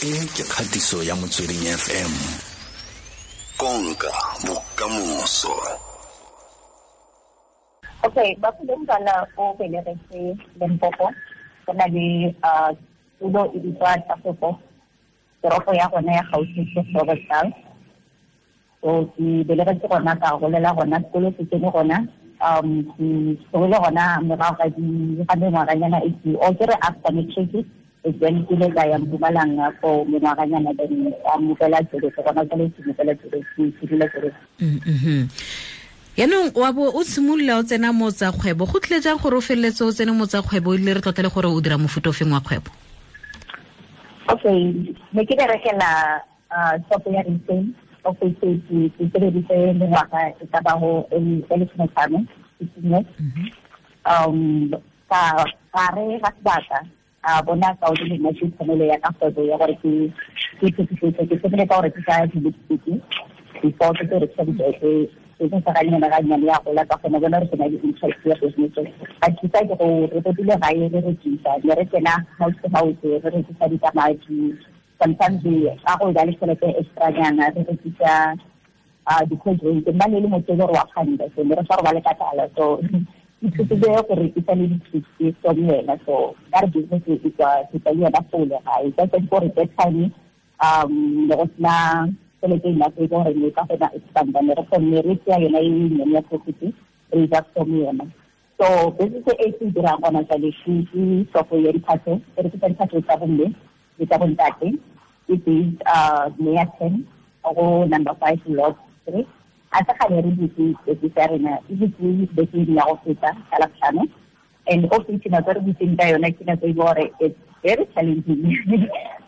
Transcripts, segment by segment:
E ke kgatiso ya Motsweding FM. Konka bokamoso. Okay, ba Mphule o belegetse Limpopo. Go na le tulo e bitswa Tafopo. Toropo ya gona ya gaufi ke Robertsdal. So ke belegetse gona, ka golela gona, sekolo se tsene gona. Ke tlogile gona morago ga di ga mengwaganyana e ke o ke re after matric, then ke ile ka ya Mpumalanga for mengwaganyana, then ka mopela Joburg. Gona jwale ke mopela Joburg, ke dula Joburg. Yaanong wa bo o simolola o tsena mo tsa kgwebo, go tlile jang gore o feleletse o tsene mo tsa kgwebo, e le re tlotla le gore o dira mofuta o feng wa kgwebo? Okay, ne ke berekela shop ya retail, of which ke sebeditse mengwaga e ka bago e 15, 15 years. Ka gare ga sebaka a bona ka o le nna ke tshwanelo ya ka kgwebo ya gore ke phetisetso. Ke thomile ka go rekisa di-lipstick before ke tlo rekisa dibeke. Business ga nyane ga nyane ya gola, ka kgona bona gore ke na le interest ya business. Ba thusa ke go re totile gae re rekisa, ne re tsena house to house re rekisa ditamati. Sometimes ka go ba le tšhelete extra nyana, re rekisa di-cold drink. Nna ne le motho e le gore wa kganda, so ne re sa robale ka tlala, so ithutile go rekisa le di-chips from yena. So ka re business e tswa ke tswa le yona fole gae ka tsa gore that time ne go sena tšhelete enough e gore ne ka kgona expanda. Ne re kgonne re tseya yona e nnyane ya profit, re ja from yona. So business e ke dirang gona jale ke shop ya diphatlho, e rekisa diphatlho tsa bomme le tsa bontate. E based near 10 go number 5 Lot 3. A sa gale re butse business ya rena, e butse beke ya go feta ka Labotlhano, and also ke nako re butseng ka yona ke nako e gore it's very challenging,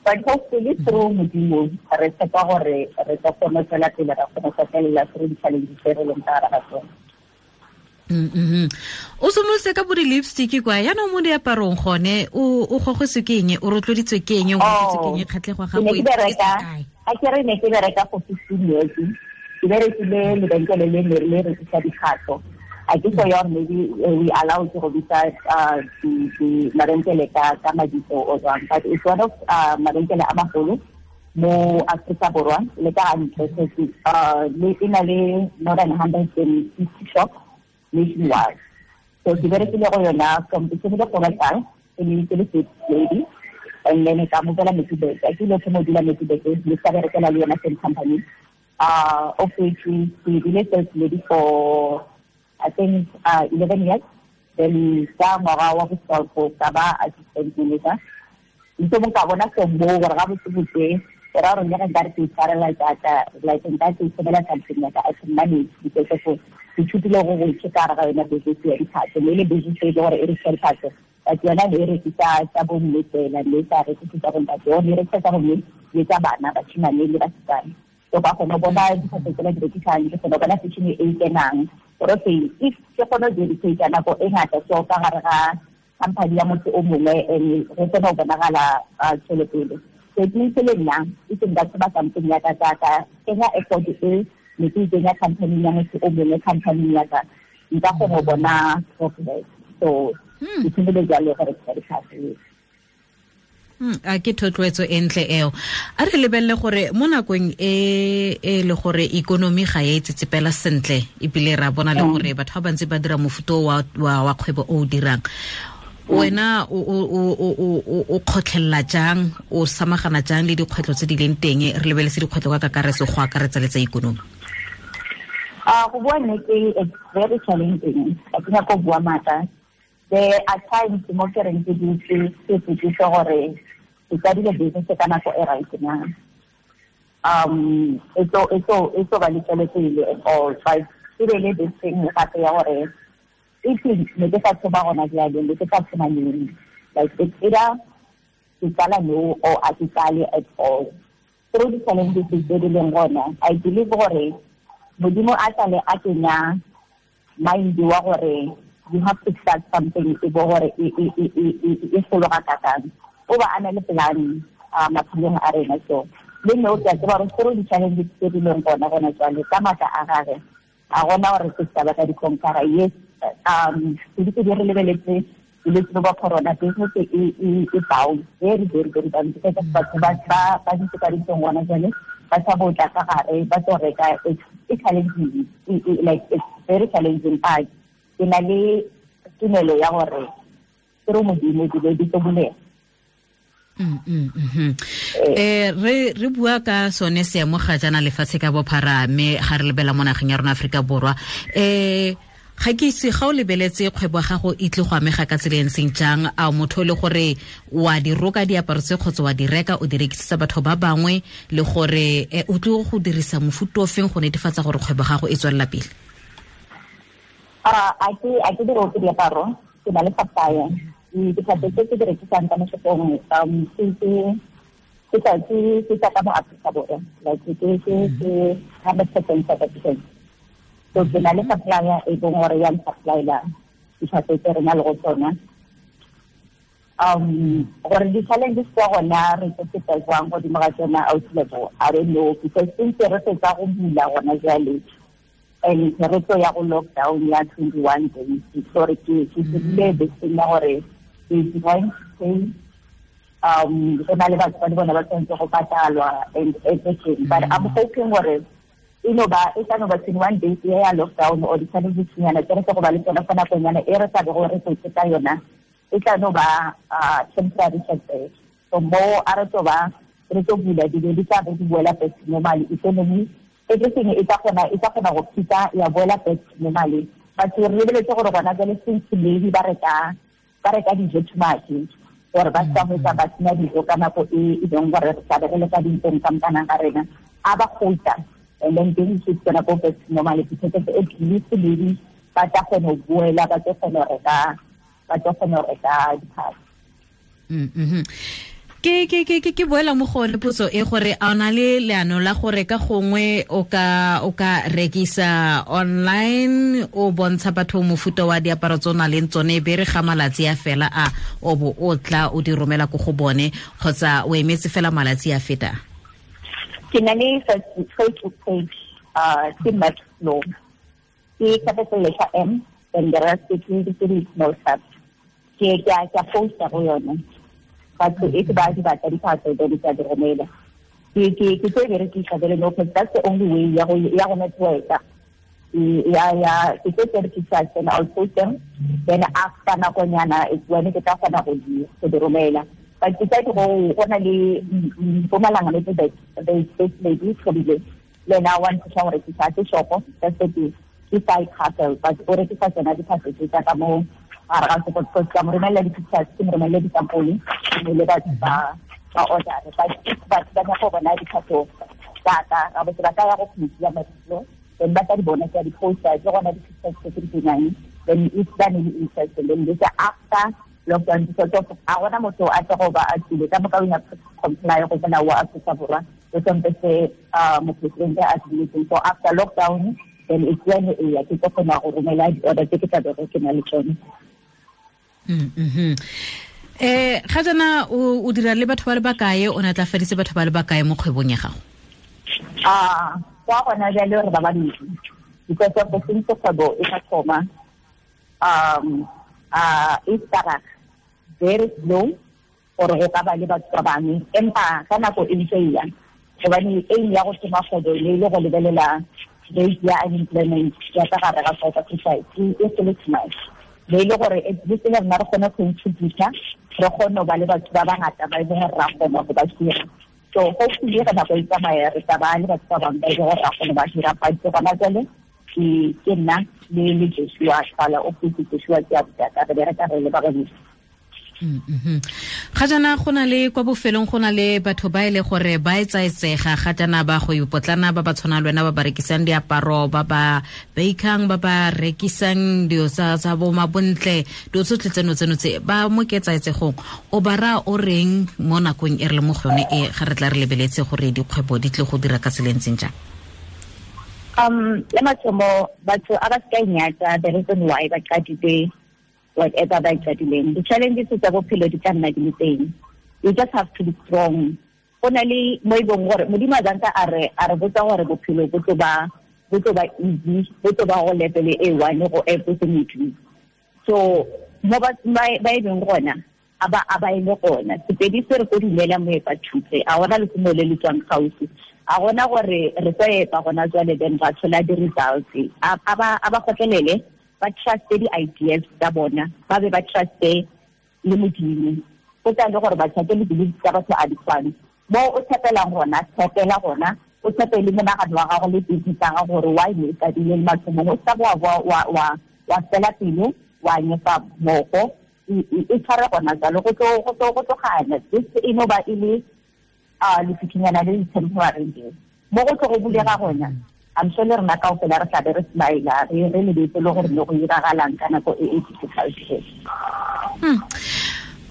but hopefully through Modimo re tshepa gore re tlo kgona tswela pele, ra kgona go felela through di-challenges tse re leng ka gare ga tsone. O simolotse ka bo di-lipstick kwa, yaanong mo diaparong gone o gogetswe ke eng, o rotloeditswe ke eng, o rotloeditswe ke eng, kgatlhego ga gago e kae? A ke re ne ke bereka for 15 years. Ke berekile lebenkele le ne le rekisa dikgatlho. A ke so ya gore maybe we allow to go bitsa mabenkele ka mabitso o jwang, but it's one of mabenkele a magolo mo Afrika Borwa le ka ntle. So le e na le more than 150 shops nationwide. So ke berekile go yona from ke thomile go batla ke ne ke le sales lady, and then ka mobela Middelburg. Ke ile go dula Middelburg le sa berekela le yona same company, of which ke bile sales lady for I think 11 years. Then ka ngwaga wa bo ka ba assistant manager. Ntse mo ka bona se mo gore ga botse botse ke ra gore le ge nkare ke itshwarela jaaka like nka ke itshebela something like I can manage, because of ke ithutile go go ka gare ga yona business ya diphatlho. Mme le business e le gore e rekisa diphatlho, but yona ne e rekisa tsa bomme fela, mme sa rekise tsa bontate. O ne e rekisa tsa bomme le tsa bana, bashimane le basetsana. So ka kgona bona diphatlho tsela di rekisang, ke kgona bona fashion e kenang gore okay, if ke kgona go dedicate nako e ngata so ka gare ga company ya motho o mongwe and go tsena go bonagala tswelopele. So it means le nna e seng batho ba something ya ka ka kenya effort e ne ke kenya company ya motho o mongwe, company ya ka nka kgona go bona progress. So ke thomile jalo gore ke dikgatlho. A ke thotloetso e ntle eo. A re lebelele gore mo nakong e e le gore ikonomi ga e tsetsepela sentle, ebile ra bona le gore batho ba bantsi ba dira mofuta wa kgwebo o o dirang wena, o kgotlhelela jang, o samagana jang le dikgwetlho tse di leng teng? Re lebeletse dikgwetlho ka kakaretso, go akaretsa le tsa ikonomi. A go bua nnete, it's very challenging. Ga ke nyako bua maaka. There are times mo ke reng ke dutse ke ipotšiše gore ke qadile business ka nako e right na, e tlo ba le tswelopele and all. But e be le this thing gape ya gore if ne ke sa tshoba gona jale, ne ke sa tshoma neng? Like it's either ke qala no or a ke qale at all. Through the challenges tse di leng gona, I believe gore Modimo a tlale a kenya mind wa gore you have to start something e bo gore e fologa kakang, o ba a na le plan maphelong a rena. So le nne o ke a tseba gore through di-challenges tse di leng gona jwale, ka maatla a gage a gona gore se ka ba ka di-conquera. Yes, se di re lebeletse. Bolwetse bo ba corona, business e down very, very, very down, because batho ba dutse ka dintlong gona jale, ba sa botla ka gare ba tlo reka. It's challenging, like it's very challenging, but ke na le tumelo ya gore ke re Modimo dilo di tlo bulega. Re bua ka sone seemo ga jaana lefatshe ka bophara, mme ga re lebela mo nageng ya rona Aforika Borwa, ga ke itse ga o lebeletse kgwebo ya gago e tle go amega ka tsela e ntseng jang. A motho le gore wa di roka diaparo tse kgotsa wa di reka o di rekisetsa batho ba bangwe, le gore o tle go dirisa mofuta o feng go netefatsa gore kgwebo ya gago e tswelela pele? A ke di roke diaparo, ke na le supplier. Ditlhapi tse ke di rekisang ka mo shopong, ke tsa ka mo Aforika Borwa, like ke 100% South African. So ke na le supplier e bong gore ya supplyela ditlhapi tse re na le go tsona. Gore di-challenges tsa gona re tlo feta jwang godimo ga tsona, out level, I don't know, because since re fetsa go bula gona jale and re tlo ya go lockdown ya 21 days, so re ke dirile beseng ya gore ke going to pay, go na le batho ba le bona ba tshwanetse go patalwa and everything. But I'm hoping gore e no ba e tla no ba 21 days ya lockdown or di-challenges nyana tse re tlo go ba le tsona fa nakonyana e re sa be gore re tsetse ka yona, e tla no ba temporary setback. So mo a re tlo ba re tlo bula dilo di tla be di boela back to normal, economy everything e tla kgona go phita ya boela back to normal. Batho re lebeletse gore gona jale since maybe ba reka dijo too much, gore ba sa hwetsa ba sena dijo ka nako e leng gore re tla be re le ka dintlong ka mokanang ga rena, a ba gotla, and then things is gonna go back to normal, because at least maybe ba tla kgona go boela, ba tlo kgona go reka diphahlo. Ke boela mo go le potso e gore a ona le leano la gore ka gongwe o ka rekisa online, o bontsha batho mofuta wa diaparo tse o nang le tsone, be re ga malatsi a fela a o bo o tla o di romela ko go bone, kgotsa o emetse fela malatsi a feta? Ke na le Facebook page, ke Maxflow, ke capital letter M, then the rest ke di small caps. Ke a posta go yone. Batho e ke ba di batla diphahlo then ke a di romela. Ke tlo e berekisa jale, no, because that's the only way ya go network-a. Ya ke tlo berekisa, then I'll post them, then after nakonyana it's when ke tla kgona go di romela. But ke tla go na le Mpumalanga le tse this lady probably le na wa nthusa go rekisa ke shopo, that's the thing. Ke side hustle, but o rekisa tsona diphahlo tse tsa ka mo gare ga sekolo, because ka mo romella di-pictures, ke mo romelle disampole, le batho ba order. But if batho ba nyaka go bona diphahlo tsa ka, ga botse ba ka ya go page ya Maxflow, then ba tla di bona, ke a di-posta, ke gona di-pictures tse ke di kenyang, then if ba ne le interest, then they say after lockdown, because of a gona motho a tla go ba a tsile ka moka, we have to comply go molao wa Afrika Borwa, le sompe se mopresidente a se. So after lockdown, then it's when e ya ke tlo kgona go romela di-order tse ke tla bego ke na le tsone. Ga jaana o dira le batho ba le bakae, o natlafaditse batho ba le bakae mo kgwebong ya gago? Kwa gona jale re ba babedi, because of the since kgwebo e sa thoma, e start very slow gore go ka ba le batho ba bangwe, empa ka nako e ntse e ya, gobane aim ya go thoma kgwebo le le go lebelela rate ya unemployment ya ka gare ga South Africa e sele too much. Le le gore at least le rena re kgone go contributa, re kgone go ba le batho ba bangata ba e leng gore ra kgona go ba hira. So hopefully ga nako e tsamaya re tla ba le batho ba bangwe ba e leng gore ra kgona ba hira. But gona jale ke nna le Joshua Tsala, o putse Joshua ke a botaka, re bereka re le ba babedi. Ga jaana go na le kwa bofelong go na le batho ba e le gore ba etsaetsega ga jaana ba go ipotlana, ba ba tshwana le wena, ba ba rekisang diaparo, ba ba bakang, ba ba rekisang dilo tsa bo mabontle, dilo tsotlhe tseno tse ba mo ketsaetsegong, o ba raya o reng mo nakong e re le mo go yone e ga re tla re lebeletse gore dikgwebo di tle go dira ka tsela e ntseng jang? Le mathomo batho a ba se ka inyatsa the reason why ba qadile whatever ba qadileng. The challenges tsa bophelo di tla nna di le teng. You just have to be strong. Go na le mo e bong gore Modimo a zantsa a re botsa gore bophelo bo tlo ba easy, bo tlo ba go level e one go everything you do. So Mo ba e beng gona a ba e le gona. Sepedi se re ko dumela moepa thupe, a gona lehumo le le tswang gaufi, a gona gore re tlo epa gona jwale then ba tshola di-results. A ba kgotlelele, ba truste di-ideas tsa bona, ba be ba truste le Modimo. Go tla le gore ba tshape le beliefs tsa batho a di tshwane. Mo o tshepelang gona, tshepela gona, o tshepe le monagano wa gago le business ya gago gore why ne e qadile le mathomong. O sa wa fela pelo, wa nyefa moko, e tshware gona jalo, go tlogana. This e no ba e le lefikinyana le le temporary nje. Mo go tlo go bulega gona, I'm sure le rena kaofela re tlabe re smile, re lebetse le gore le go iragalang ka nako e e difficult.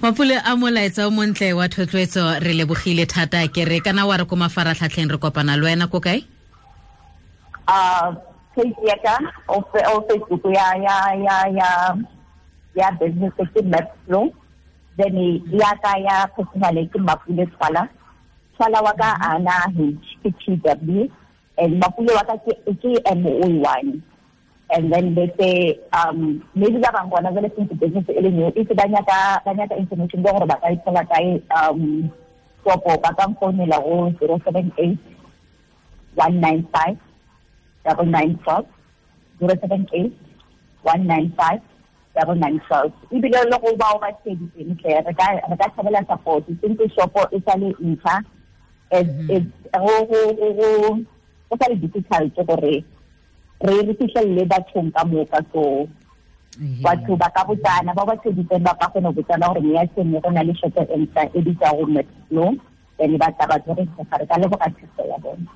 Mapule a molaetsa o montle wa thotloetso, re lebogile thata. Ke re kana wa re ko mafaratlhatlheng re kopana le wena ko kae? Page ya ka o Facebook ya business ke Mapflow, then ya ka ya personal ke Mapule Twala. Twala wa ka ana H ke T W, and Mapule wa ka ke M O 1. And then they say, maybe ba bang gona jwale since business e le new, if ba nyaka information gore ba ka ithola kae, kopo ba ka mfounela go 078 195 9912, 078 195 9912. Ebile le go bao ba tsheditseng tle, re ka thabela support since shopo e sa le ntšha, go sa le difficult gore re fitlhelele bathong ka moka. So batho ba ka botsana, ba ba tsheditseng ba ka kgona go botsana gore meya sengwe go na le shopo e ntšha e bitsa go Mapflow, then ba tla ba re re ka leboga thuso ya bona.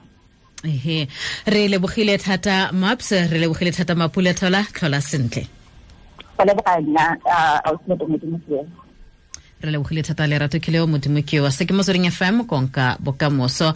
Ehe, re lebogile thata Maps, re lebogile thata Mapule Thola, tlhola sentle. Go leboga nna, ausi Modimo ke. Re lebogile thata Lerato Kileo, Modimo ke wa. Se ke Motsweding FM, konka bokamoso.